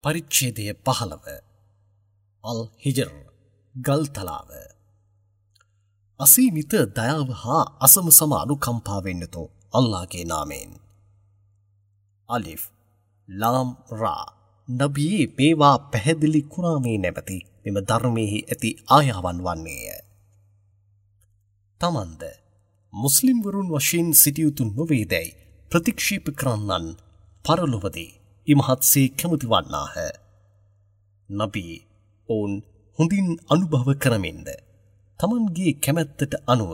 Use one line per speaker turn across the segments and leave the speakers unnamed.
පරිච්ඡේදය 15 අල් හිජර් ගල්තලාව. අසීමිත දයාව හා අසම සම අනුකම්පාවෙන් යුතු අල්ලාහගේ නාමයෙන්. අලිෆ් ලාම් රා. නබියේ මේවා පැහැදිලි කුරානේ නැමැති මෙම ධර්මයෙහි ඇති ආයාවන් වන්නේය. තමන්ද මුස්ලිම්වරුන් වශයෙන් සිටිය යුතු නොවේදැයි ප්‍රතික්ෂේප කරන්නන් පරලොවදී ඉමහත්සේ කැමති වන්නාහ. නබී ඔවුන් හොඳින් අනුභව කරමින්ද තමන්ගේ කැමැත්තට අනුව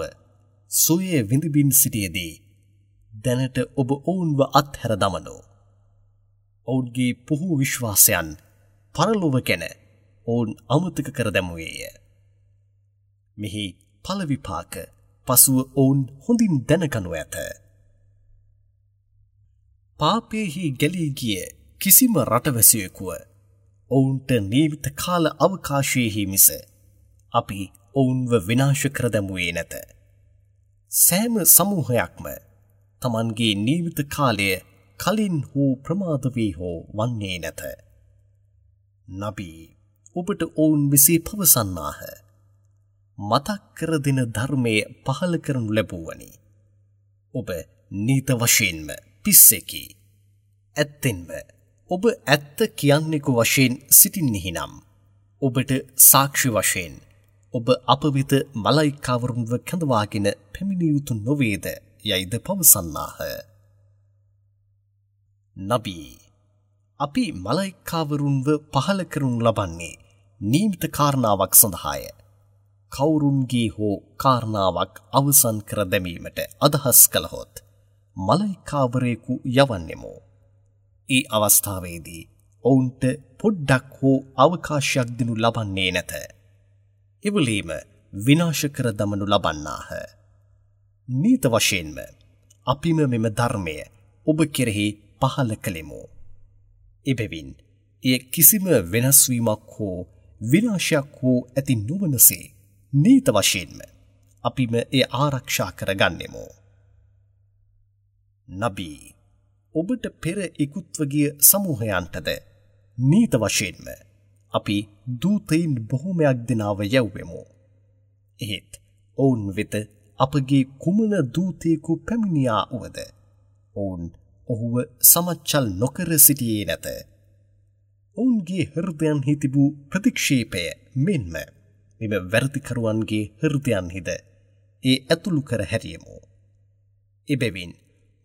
සොය විඳිමින් සිටියේදී දැනට ඔබ ඔවුන්ව අත්හැර දමනු. ඔවුන්ගේ පුහු විශ්වාසයන් පරලොව ගැන ඔවුන් අමතක කර දැමුවේය. මෙහි ඵල විපාක පසුව ඔවුන් හොඳින් දැනගනු ඇත. පාපයෙහි ගැලී ගිය කිසිම රටවැසියෙකුව ඔවුන්ට නියමිත කාල අවකාශයෙහි මිස අපි ඔවුන්ව විනාශ කර දැමුවේ නැත. සෑම සමූහයක්ම තමන්ගේ නියමිත කාලය කලින් හෝ ප්‍රමාද වී හෝ වන්නේ නැත. නබී ඔබට ඔවුන් මෙසේ පවසන්නාහ. මතක් කර දෙන ධර්මය පහළ කරනු ලැබුවනි. ඔබ නීත වශයෙන්ම පිස්සෙකි. ඇත්තෙන්ම ඔබ ඇත්ත කියන්නෙකු වශයෙන් සිටින්නෙහි නම් ඔබට සාක්ෂි වශයෙන් ඔබ අප වෙත මලයිකාවරුන්ව කැඳවාගෙන පැමිණිය යුතු නොවේද යයිද පවසන්නාහ. නබී අපි මලයිකාවරුන්ව පහළ කරනු ලබන්නේ නියමිත කාරණාවක් සඳහාය. කවුරුන්ගේ හෝ කාරණාවක් අවසන් කර දැමීමට අදහස් කළහොත් මලයිකාවරයෙකු යවන්නෙමු. ඒ අවස්ථාවේදී ඔවුන්ට පොඩ්ඩක් හෝ අවකාශයක් දෙනු ලබන්නේ නැත. එවලේම විනාශ කර දමනු ලබන්නාහ. නීත වශයෙන්ම අපිම මෙම ධර්මය ඔබ කෙරෙහි පහළ කළෙමු. එබැවින් එය කිසිම වෙනස් වීමක් හෝ විනාශයක් හෝ ඇති නොවනසේ නීත වශයෙන්ම අපිම එය ආරක්ෂා කර ගන්නෙමු. නබී ඔබට පෙර ඉකුත්ව ගිය සමූහයන්ටද නීත වශයෙන්ම අපි දූතයින් බොහොමයක් දෙනාව යැව්වෙමු. එහෙත් ඔවුන් වෙත අපගේ කුමන දූතයෙකු පැමිණියා වුවද ඔවුන් ඔහුව සමච්චල් නොකර සිටියේ නැත. ඔවුන්ගේ හෘදයන්හි තිබූ ප්‍රතික්ෂේපය මෙන්ම මෙම වැරදිකරුවන්ගේ හෘදයන්හිද ඒ ඇතුළු කර හැරියමු. එබැවින්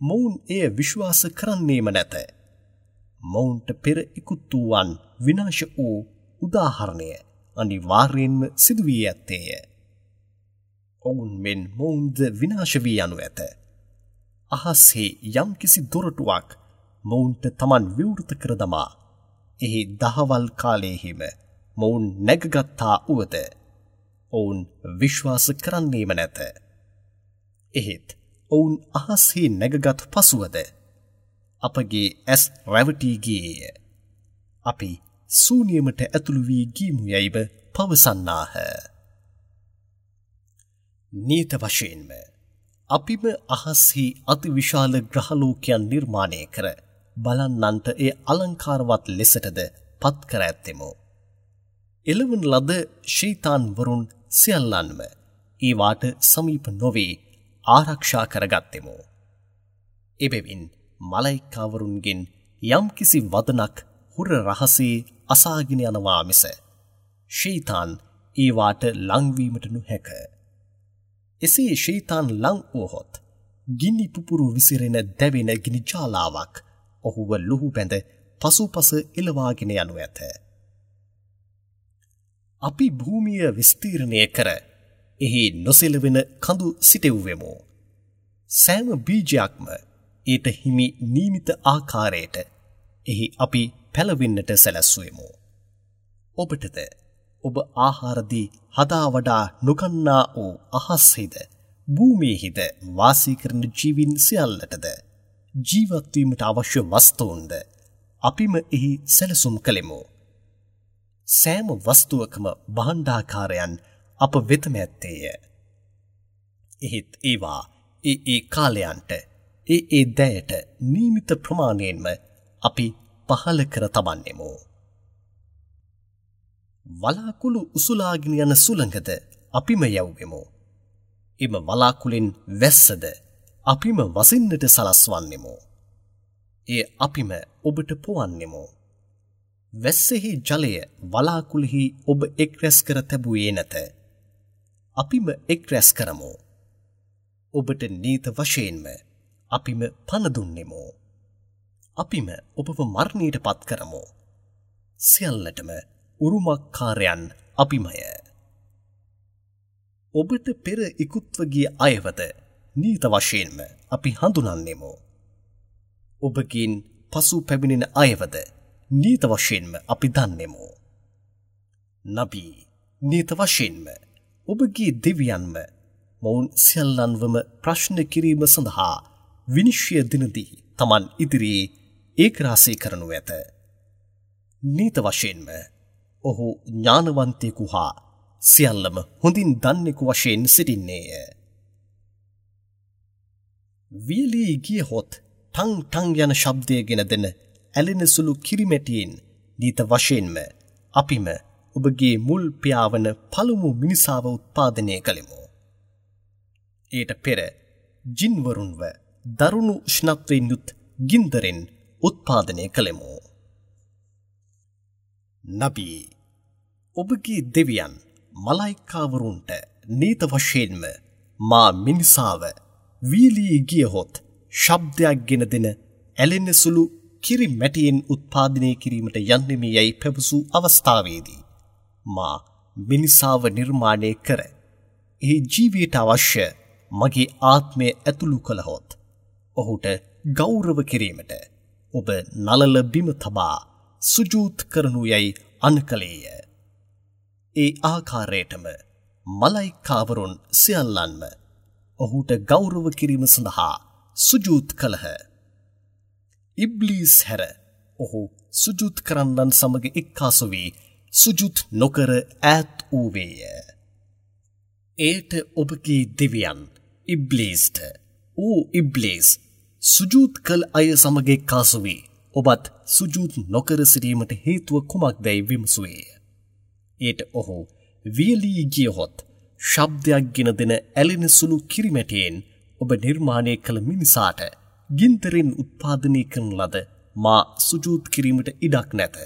මොවුන් එය විශ්වාස කරන්නේම නැත. මොවුන්ට පෙර ඉකුත් වූවන් විනාශ වූ උදාහරණය අනිවාර්යයෙන්ම සිදු වී ඇත්තේය. ඔවුන් මෙන් මොවුන්ද විනාශ වී යනු ඇත. අහස්හි යම්කිසි දොරටුවක් මොවුන්ට තමන් විවෘත කර දමා එහි දහවල් කාලයෙහිම මොවුන් නැගගත්තා වුවද ඔවුන් විශ්වාස කරන්නේම නැත. එහෙත් ඔවුන් අහස්හි නැගගත් පසුවද අපගේ ඇස් රැවටී ගියේය. අපි ශූන්‍යමට ඇතුළු වී ගියමු යයිව පවසන්නාහ. නීත වශයෙන්ම අපිම අහස්හි අතිවිශාල ග්‍රහලෝකයන් නිර්මාණය කර බලන්නන්ට එය අලංකාරවත් ලෙසටද පත් කර ඇත්තෙමු. එළවන ලද ෂයිතාන්වරුන් සියල්ලන්ම ඒවාට සමීප නොවේ ආරක්ෂා කරගත්තෙමු. එබැවින් මලයිකාවරුන්ගෙන් යම්කිසි වදනක් හුර රහසේ අසාගෙන යනවා මිස ෂයිතාන් ඒවාට ලංවීමට නොහැක. එසේ ෂයිතාන් ලං වුවහොත් ගිනි පුපුරු විසිරෙන දැවෙන ගිනි ජාලාවක් ඔහුව ලුහු බැඳ පසුපස එළවාගෙන යනු ඇත. අපි භූමිය විස්තීර්ණය කර එහි නොසෙලවෙන කඳු සිටෙව්වෙමු. සෑම බීජයක්ම ඊට හිමි නියමිත ආකාරයට එහි අපි පැලවෙන්නට සැලැස්වෙමු. ඔබටද ඔබ ආහාරදී හදා වඩා නොගන්නා වූ අහස්හිද භූමියේහිද වාසය කරන ජීවීන් සියල්ලටද ජීවත් වීමට අවශ්‍ය වස්තුන්ද අපිම එහි සැලසුම් කළෙමු. සෑම වස්තුවකම භාණ්ඩාකාරයන් අප වෙතම ඇත්තේය. එහෙත් ඒවා ඒ ඒ කාලයන්ට ඒ ඒ දෑයට නියමිත ප්‍රමාණයෙන්ම අපි පහළ කර තබන්නෙමු. වලාකුළු උසුලාගෙන යන සුළඟද අපිම යැව්වෙමු. එම වලාකුළෙන් වැස්සද අපිම වසින්නට සලස්වන්නෙමු. එය අපිම ඔබට පොවන්නෙමු. වැස්සෙහි ජලය වලාකුළෙහි ඔබ එක් රැස් කර තැබුවේ නැත. අපිම එක් රැස් කරමු. ඔබට නීත වශයෙන්ම අපිම පණ දුන්නෙමු. අපිම ඔබව මරණයට පත් කරමු. සියල්ලටම උරුමකාරයන් අපිමය. ඔබට පෙර ඉක්ුත්ව ගිය අයවද නීත වශයෙන්ම අපි හඳුනන්නෙමු. ඔබගෙන් පසු පැමිණෙන අයවද නීත වශයෙන්ම අපි දන්නෙමු. නබී, නීත වශයෙන්ම ඔබගේ දෙවියන්ම මොවුන් සියල්ලන්වම ප්‍රශ්න කිරීම සඳහා විනිශ්චය දිනදී තමන් ඉදිරියේ ඒකරාශී කරනු ඇත. නීත වශයෙන්ම ඔහු ඥානවන්තයෙකු හා සියල්ලම හොඳින් දන්නෙකු වශයෙන් සිටින්නේය. වියලී ගියහොත් ටං ටං යන ශබ්දය ගෙන දෙන ඇලෙන සුළු කිරිමැටියෙන් නීත වශයෙන්ම අපිම ඔබගේ මුල් පියාවන පළමු මිනිසාව උත්පාදනය කළෙමු. ඊට පෙර ජින්වරුන්ව දරුණු උෂ්ණත්වයෙන් යුත් ගින්දරෙන් උත්පාදනය කළෙමු. නබී, ඔබගේ දෙවියන් මලයිකාවරුන්ට නීත වශයෙන්ම මා මිනිසාව වියලී ගියහොත් ශබ්දයක් ගෙන දෙන ඇලෙන සුළු කිරි මැටියෙන් උත්පාදනය කිරීමට යන්නෙමි යැයි පැවසූ අවස්ථාවේදී මා මිනිසාව නිර්මාණය කර එහි ජීවයට අවශ්‍ය මගේ ආත්මය ඇතුළු කළහොත් ඔහුට ගෞරව කිරීමට ඔබ නලල බිම තබා සුජූත් කරනු යැයි අණ කළේය. ඒ ආකාරයටම මලයිකාවරුන් සියල්ලන්ම ඔහුට ගෞරව කිරීම සඳහා සුජූත් කළහ. ඉබ්ලීස් හැර ඔහු සුජූත් කරන්නන් සමග එක්කාසු වී සුජූත් නොකර ඈත් වූවේය. එයට ඔබගේ දෙවියන් ඉබ්ලීස්ට, ඕ ඉබ්ලීස්, සුජූත් කළ අය සමග එක්කාසු වී ඔබත් සුජූත් නොකර සිටීමට හේතුව කුමක්දැයි විමසුවේය. එයට ඔහු වියලී ගියහොත් ශබ්දයක් ගෙන දෙන ඇලෙන සුළු කිරිමැටියෙන් ඔබ නිර්මාණය කළ මිනිසාට ගින්දරෙන් උත්පාදනය කරන ලද මා සුජූත් කිරීමට ඉඩක් නැත.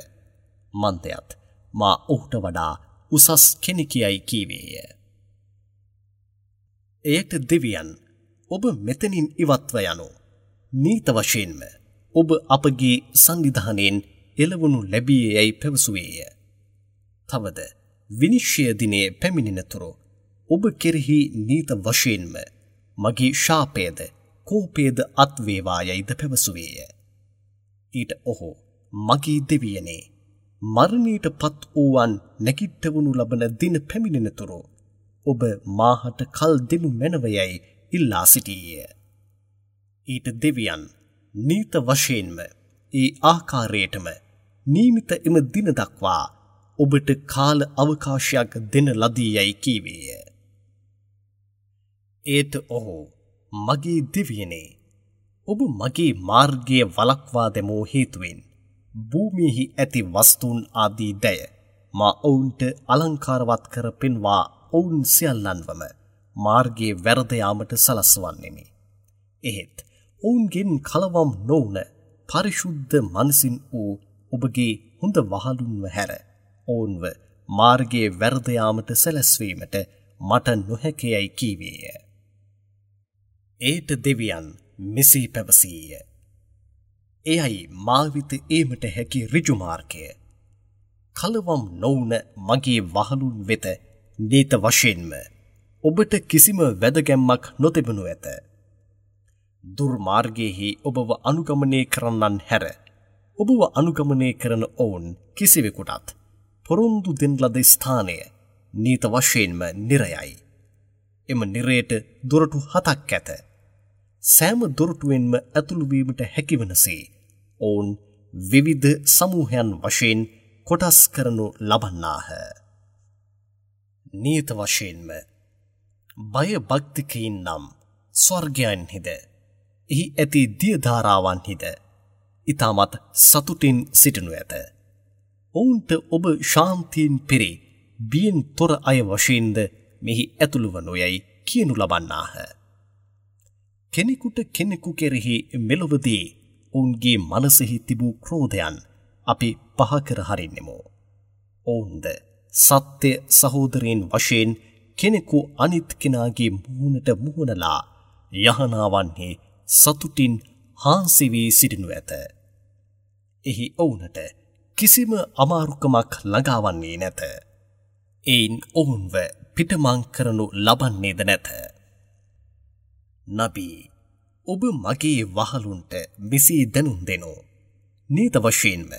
මන්දයත් මා ඔහුට වඩා උසස් කෙනෙකියයි කීවේය. එයට දෙවියන්, ඔබ මෙතනින් ඉවත්ව යනු. නීත වශයෙන්ම ඔබ අපගේ සංවිධානයෙන් එළවනු ලැබියේ යැයි පැවසුවේය. තවද විනිශ්චය දිනයේ පැමිණෙනතුරු ඔබ කෙරෙහි නීත වශයෙන්ම මගේ ශාපයද කෝපයද අත්වේවා යැයිද පැවසුවේය. ඊට ඔහු, මගේ දෙවියනේ, මරණයට පත් වූවන් නැගිට්ටවනු ලබන දින පැමිණෙනතුරු ඔබ මාහට කල් දෙනු මැනව යැයි ඉල්ලා සිටීය. ඊට දෙවියන් නීත වශයෙන්ම ඒ ආකාරයටම නියමිත එම දින දක්වා ඔබට කාල අවකාශයක් දෙන ලදී යැයි කීවේය. ඒට ඔහු, මගේ දෙවියනේ, ඔබ මගේ මාර්ගය වළක්වා දැමූ හේතුවෙන් භූමියෙහි ඇති වස්තුන් ආදී දය මා ඔවුන්ට අලංකාරවත් කර පෙන්වා ඔවුන් සියල්ලන්වම මාර්ගයේ වැරද යාමට සලස්වන්නෙමි. එහෙත් ඔවුන්ගෙන් කලවම් නොවුන පරිශුද්ධ මනසින් වූ ඔබගේ හොඳ වහලුන්ව හැර ඔවුන්ව මාර්ගයේ වැරද යාමට සැලැස්වීමට මට නොහැකියයි කීවේය. ඒට දෙවියන් මෙසේ පැවසීය. එයයි මා වෙත ඒමට හැකි ඍජු මාර්ගය. කලවම් නොවුන මගේ වහලුන් වෙත නීත වශයෙන්ම ඔබට කිසිම වැදගැම්මක් නොතිබෙනු ඇත. දුර්මාර්ගයෙහි ඔබව අනුගමනය කරන්නන් හැර ඔබව අනුගමනය කරන ඔවුන් කිසිවෙකුටත් පොරොන්දු දෙන ලද ස්ථානය නීත වශයෙන්ම නිරයයි. එම නිරයට දොරටු 7ක් ඇත. සෑම දොරටුවෙන්ම ඇතුළු වීමට හැකිවනසේ ඔවුන් විවිධ සමූහයන් වශයෙන් කොටස් කරනු ලබන්නාහ. නියත වශයෙන්ම බය භක්තිකයින් නම් ස්වර්ගයන්හිද එහි ඇති දිය ධාරාවන්හිද ඉතාමත් සතුටින් සිටිනු ඇත. ඔවුන්ට ඔබ ශාන්තියෙන් පිරි බියෙන් තොර අය වශයෙන්ද මෙහි ඇතුළු වනු යයි කියනු ලබන්නාහ. කෙනෙකුට කෙනෙකු කෙරෙහි මෙලොවදී ඔවුන්ගේ මනසෙහි තිබූ ක්‍රෝධයන් අපි පහ කර හරින්නෙමු. ඔවුන්ද සත්‍ය සහෝදරයන් වශයෙන් කෙනෙකු අනිත් කෙනාගේ මුහුණට මුහුණලා යහනාවන්හි සතුටින් හාන්සි වී සිටිනු ඇත. එහි ඔවුනට කිසිම අමාරුකමක් ළඟාවන්නේ නැත. එයින් ඔවුන්ව පිටමං කරනු ලබන්නේද නැත. නබී, ඔබ මගේ වහලුන්ට මෙසේ දැනුම් දෙනු. නීත වශයෙන්ම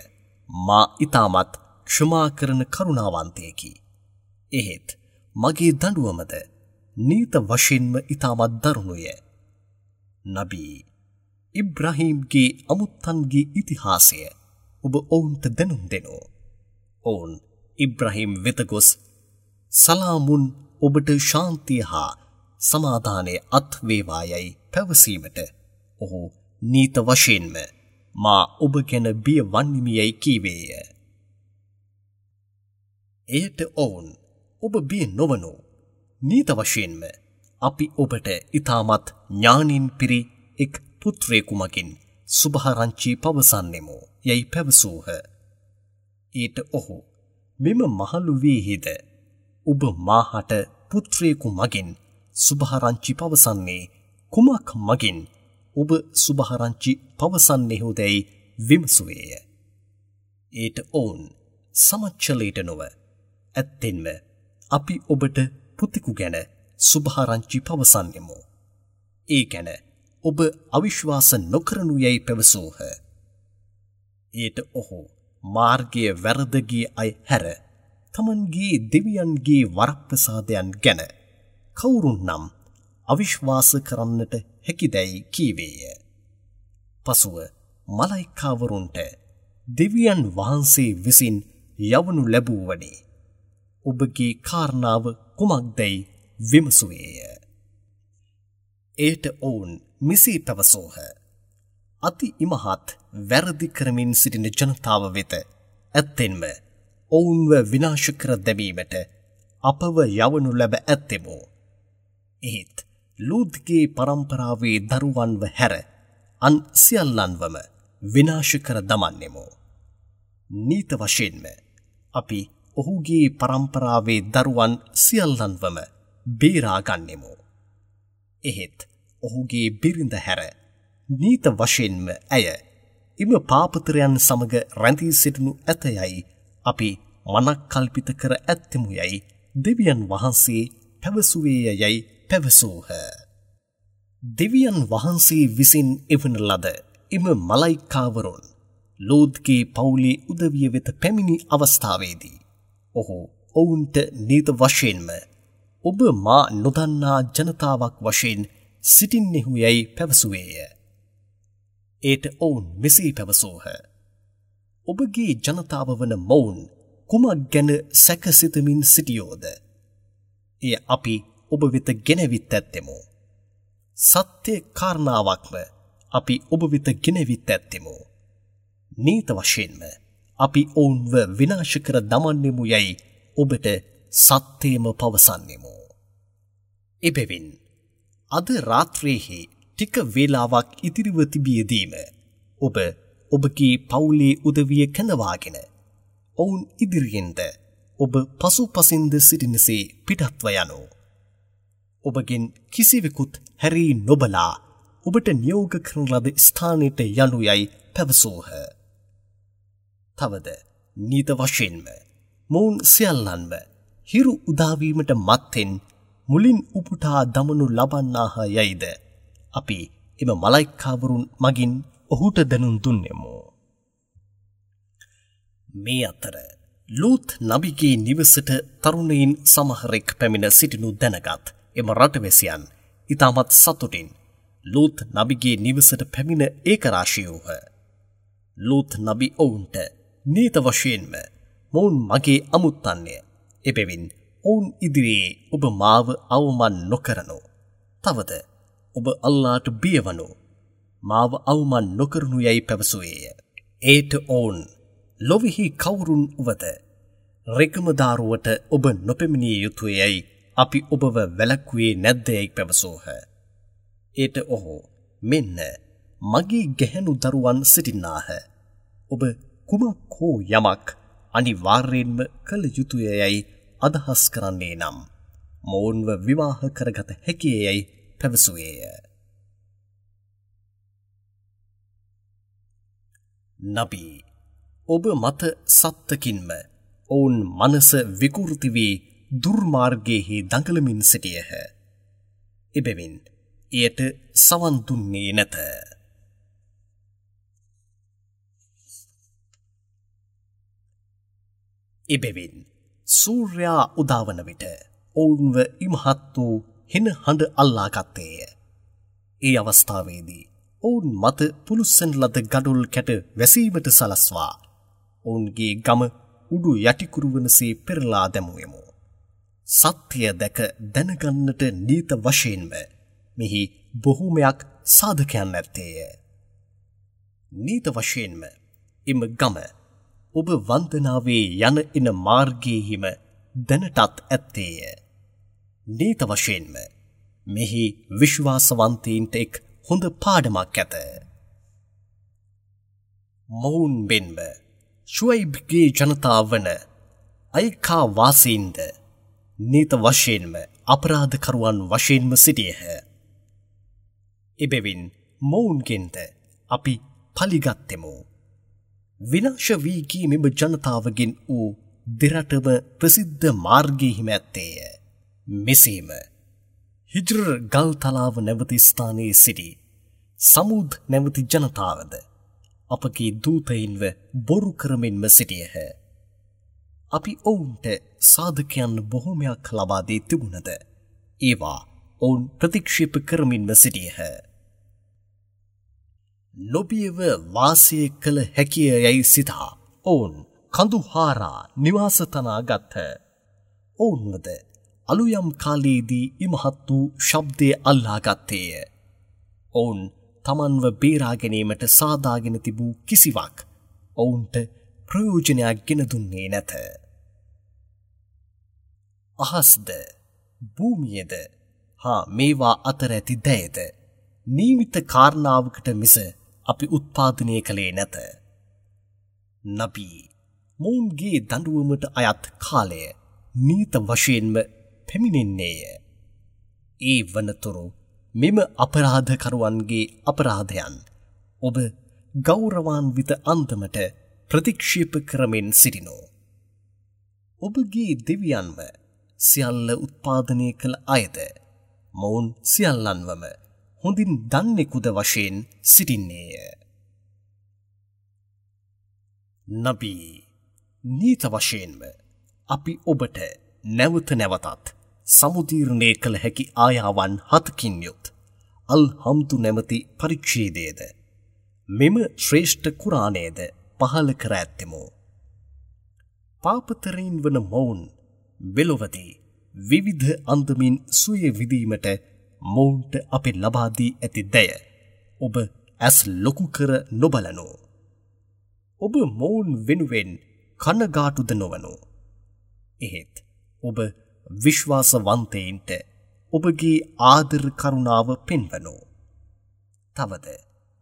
මා ඉතාමත් ක්ෂමා කරන කරුණාවන්තයෙකි. එහෙත් මගේ දඬුවමද නීත වශයෙන්ම ඉතාමත් දරුණුය. නබී, ඉබ්‍රාහීම්ගේ අමුත්තන්ගේ ඉතිහාසය ඔබ ඔවුන්ට දැනුම් දෙනු. ඔවුන් ඉබ්‍රාහීම් වෙත ගොස් සලාමුන් ඔබට ශාන්තිය හා සමාදානය අත් වේවා යයි පැවසීමට ඔහු නීත වශයෙන්ම මා ඔබ ගැන බිය වන්නිමි යයි කීවේය. එයට ඔවුන් ඔබ බිය නොවනු. නීත වශයෙන්ම අපි ඔබට ඉතාමත් ඥානින් පිරි එක් පුත්‍රයෙකු මගින් සුභාරංචි පවසන්නෙමු යයි පැවසූහ. ඊට ඔහු මෙම මහලු වීහිද ඔබ මාහට පුත්‍රයෙකු මගින් සුභාරංචි පවසන්නේ කුමක් මගින් ඔබ සුභාරංචි පවසන්නේහුදැයි විමසුවේය. ඊට ඔවුන් සමච්චලයට නොව ඇත්තෙන්ම අපි ඔබට පුතෙකු ගැන සුභාරංචි පවසන්නෙමු. ඒ ගැන ඔබ අවිශ්වාස නොකරනු යැයි පැවසූහ. ඊට ඔහු මාර්ගය වැරද ගිය අය හැර තමන්ගේ දෙවියන්ගේ වරප්‍රසාදයන් ගැන කවුරුන් නම් අවිශ්වාස කරන්නට හැකිදැයි කීවේය. පසුව මලයිකාවරුන්ට දෙවියන් වහන්සේ විසින් යවනු ලැබූවනේ ඔබගේ කාරණාව කුමක්දැයි විමසුවේය. එයට ඔවුන් මෙසේ පැවසූහ. අති ඉමහත් වැරදි කරමින් සිටින ජනතාව වෙත ඇත්තෙන්ම ඔවුන්ව විනාශ කර දැමීමට අපව යවනු ලැබ ඇත්තෙමු. එහෙත් ලූත්ගේ පරම්පරාවේ දරුවන්ව හැර අන් සියල්ලන්වම විනාශ කර දමන්නෙමු. නීත වශයෙන්ම අපි ඔහුගේ පරම්පරාවේ දරුවන් සියල්ලන්වම බේරා ගන්නෙමු. එහෙත් ඔහුගේ බිරිඳ හැර නීත වශයෙන්ම ඇය එම පාපතරයන් සමග රැඳී සිටිනු ඇත යයි අපි මනක්කල්පිත කර ඇත්තෙමු යයි දෙවියන් වහන්සේ පැවසුවේය යයි පැවසූහ. දෙවියන් වහන්සේ විසින් එවන ලද එම මලයිකාවරුන් ලෝත්ගේ පවුලේ උදවිය වෙත පැමිණි අවස්ථාවේදී ඔහු ඔවුන්ට නීත වශයෙන්ම ඔබ මා නොදන්නා ජනතාවක් වශයෙන් සිටින්නෙහු යැයි පැවසුවේය. එයට ඔවුන් මෙසේ පැවසූහ. ඔබගේ ජනතාව වන මොවුන් කුමක් ගැන සැකසිතමින් සිටියෝද? එය අපි ඔබ වෙත ගෙනවිත් ඇත්තෙමු. සත්‍ය කාරණාවක්ම අපි ඔබ වෙත ගෙනවිත් ඇත්තෙමු. නීත වශයෙන්ම අපි ඔවුන්ව විනාශ කර දමන්නෙමු යැයි ඔබට සත්‍යයම පවසන්නෙමු. එබැවින් අද රාත්‍රියේහි ටික වේලාවක් ඉතිරිව තිබියදීම ඔබ ඔබගේ පවුලේ උදවිය කැඳවාගෙන ඔවුන් ඉදිරියෙන්ද ඔබ පසුපසින්ද සිටිනසේ පිටත්ව යනු. ඔබගෙන් කිසිවෙකුත් හැරී නොබලා ඔබට නියෝග කරන ලද ස්ථානයට යනු යයි පැවසූහ. තවද නීත වශයෙන්ම මොවුන් සියල්ලන්ම හිරු උදාවීමට මත්තෙන් මුලින් උපුටා දමනු ලබන්නාහ යයිද අපි එම මලයිකාවරුන් මගින් ඔහුට දැනුම් දුන්නෙමු. මේ අතර ලූත් නබිගේ නිවසට තරුණයින් සමහරෙක් පැමිණ සිටිනු දැනගත් එම රටවැසියන් ඉතාමත් සතුටින් ලූත් නබිගේ නිවසට පැමිණ ඒකරාශී වූහ. ලූත් නබි ඔවුන්ට නීත වශයෙන්ම මොවුන් මගේ අමුත්තන්ය. එබැවින් ඔවුන් ඉදිරියේ ඔබ මාව අවමන් නොකරනු. තවද ඔබ අල්ලාට බියවනු. මාව අවමන් නොකරනු යැයි පැවසුවේය. ඒට ඔවුන් ලොවෙහි කවුරුන් වුවද රෙකමදාරුවට ඔබ නොපැමිණිය යුතුය යයි අපි ඔබව වැළැක්වුවේ නැද්ද යයි පැවසූහ. එයට ඔහු මෙන්න මගේ ගැහැණු දරුවන් සිටින්නාහ. ඔබ කුමක් හෝ යමක් අනිවාර්යයෙන්ම කළ යුතුය යයි අදහස් කරන්නේ නම් මොවුන්ව විවාහ කරගත හැකිය යයි පැවසුවේය. නබී, ඔබ මත සත්තකින්ම ඔවුන් මනස විකෘති වී දුර්මාර්ගයෙහි දඟලමින් සිටියහ. එබැවින් එයට සවන් දුන්නේ නැත. එබැවින් සූර්යා උදාවන විට ඔවුන්ව ඉමහත් වූ හෙන හඬ අල්ලා ගත්තේය. ඒ අවස්ථාවේදී ඔවුන් මත පුළුස්සන ලද ගඩොල් කැට වැසීමට සලස්වා ඔවුන්ගේ ගම උඩු යටිකුරු වනසේ පෙරලා දැමුවෙමු. සත්‍ය දැක දැනගන්නට නීත වශයෙන්ම මෙහි බොහෝමයක් සාධකයන් ඇත්තේය. නීත වශයෙන්ම එම ගම ඔබ වන්දනාවේ යන එන මාර්ගයේහිම දැනටත් ඇත්තේය. නීත වශයෙන්ම මෙහි විශ්වාසවන්තයින්ට එක් හොඳ පාඩමක් ඇත. මොවුන් මෙන්ම ෂුයිබ්ගේ ජනතාව වන අයිකා වාසීන්ද නීත වශයෙන්ම අපරාධකරුවන් වශයෙන්ම සිටියහ. එබැවින් මොවුන්ගෙන්ද අපි පලිගත්තෙමු. විනාශ වී ගිය මෙම ජනතාවගෙන් වූ දෙරටම ප්‍රසිද්ධ මාර්ගයෙහිම ඇත්තේය. මෙසේම හිජ්ර් ගල්තලාව නැවති ස්ථානයේ සිටි සමුද් නැවති ජනතාවද අපගේ දූතයින්ව බොරු කරමින්ම සිටියහ. අපි ඔවුන්ට සාධකයන් බොහොමයක් ලබා දී තිබුණද ඒවා ඔවුන් ප්‍රතික්ෂේප කරමින්ම සිටියහ. නොබියව වාසය කළ හැකිය යැයි සිතා ඔවුන් කඳු හාරා නිවාස තනා ගත්හ. ඔවුන්වද අලුයම් කාලයේදී ඉමහත් වූ ශබ්දය අල්ලා ගත්තේය. ඔවුන් තමන්ව බේරා ගැනීමට සාදාගෙන තිබූ කිසිවක් ඔවුන්ට ප්‍රයෝජනයක් ගෙන දුන්නේ නැත. අහස්ද භූමියද හා මේවා අතර ඇති දෑයද නියමිත කාරණාවකට මිස අපි උත්පාදනය කළේ නැත. නබී, මොවුන්ගේ දඬුවමට අයත් කාලය නීත වශයෙන්ම පැමිණෙන්නේය. ඒ වනතුරු මෙම අපරාධකරුවන්ගේ අපරාධයන් ඔබ ගෞරවාන්විත අන්දමට ප්‍රතික්ෂේප කරමින් සිටිනෝ. ඔබගේ දෙවියන්ව සියල්ල උත්පාදනය කළ අයද මොවුන් සියල්ලන්වම හොඳින් දන්නෙකුද වශයෙන් සිටින්නේය. නබී, නීත වශයෙන්ම අපි ඔබට නැවත නැවතත් සමුදීර්ණය කළ හැකි ආයාවන් හතකින් යුත් අල් හම්දු නැමැති පරිච්ඡේදයද මෙම ශ්‍රේෂ්ඨ කුරානයද පහළ කර ඇත්තෙමු. පාපතරීන් වන මොවුන් මෙලොවදී විවිධ අන්දමින් සුවය විඳීමට මොවුන්ට අපි ලබා දී ඇති දය ඔබ ඇස් ලොකු කර නොබලනු. ඔබ මොවුන් වෙනුවෙන් කනගාටුද නොවනු. එහෙත් ඔබ විශ්වාසවන්තයින්ට ඔබගේ ආදර කරුණාව පෙන්වනු. තවද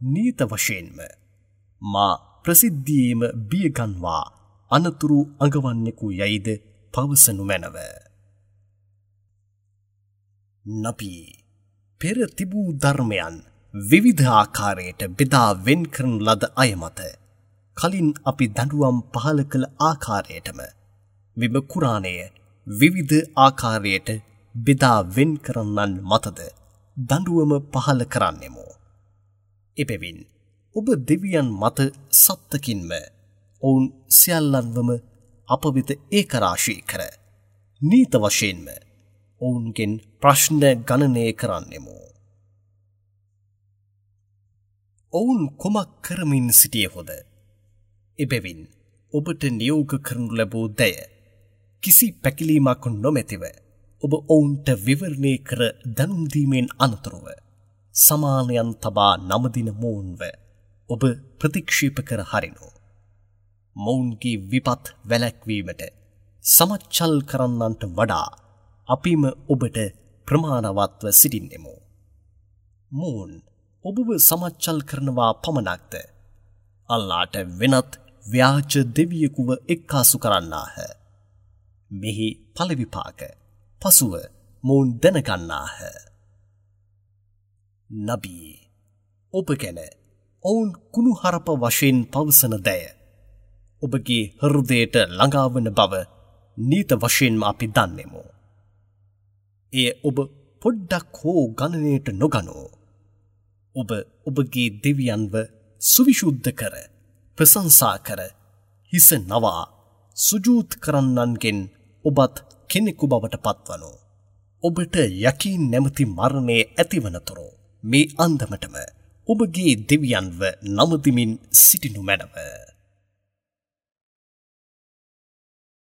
නීත වශයෙන්ම මා ප්‍රසිද්ධියේම බියගන්වා අනතුරු අඟවන්නෙකු යයිද පවසනු මැනව. නබී, පෙර තිබූ ධර්මයන් විවිධ ආකාරයට බෙදා වෙන් කරන ලද අය මත කලින් අපි දඬුවම් පහළ කළ ආකාරයටම මෙම කුරානය විවිධ ආකාරයට බෙදා වෙන් කරන්නන් මතද දඬුවම පහළ කරන්නෙමු. එබැවින් ඔබ දෙවියන් මත සත්තකින්ම ඔවුන් සියල්ලන්වම අප වෙත ඒකරාශී කර නීත වශයෙන්ම ඔවුන්ගෙන් ප්‍රශ්න ගණනය කරන්නෙමු. ඔවුන් කුමක් කරමින් සිටියහොද? එබැවින් ඔබට නියෝග කරනු ලැබූ දය කිසි පැකිලීමක් නොමැතිව ඔබ ඔවුන්ට විවරණය කර දැනුම් දීමෙන් අනතුරුව සමානයන් තබා නමදින මොවුන්ව ඔබ ප්‍රතික්ෂේප කර හරිනු. මොවුන්ගේ විපත් වැළැක්වීමට සමච්චල් කරන්නන්ට වඩා අපිම ඔබට ප්‍රමාණවත්ව සිටින්නෙමු. මොවුන් ඔබව සමච්චල් කරනවා පමණක්ද? අල්ලාට වෙනත් ව්‍යාජ දෙවියෙකුව එක්කාසු කරන්නාහ. මෙහි ඵල විපාක පසුව මොවුන් දැනගන්නාහ. නබී, ඔබ ගැන ඔවුන් කුණුහරුප වශයෙන් පවසන දෑ ඔබගේ හෘදයට ළඟාවන බව නීත වශයෙන්ම අපි දන්නෙමු. එය ඔබ පොඩ්ඩක් හෝ ගණනයට නොගනෝ. ඔබ ඔබගේ දෙවියන්ව සුවිශුද්ධ කර, ප්‍රශංසා කර, හිස නවා සුජූද් කරන්නන්ගෙන් ඔබත් කෙනෙකු බවට පත්වනෝ. ඔබට යකීන් නැමැති මරණය ඇතිවනතුරු මේ අන්දමටම ඔබගේ දෙවියන්ව නමදිමින් සිටිනු මැනව.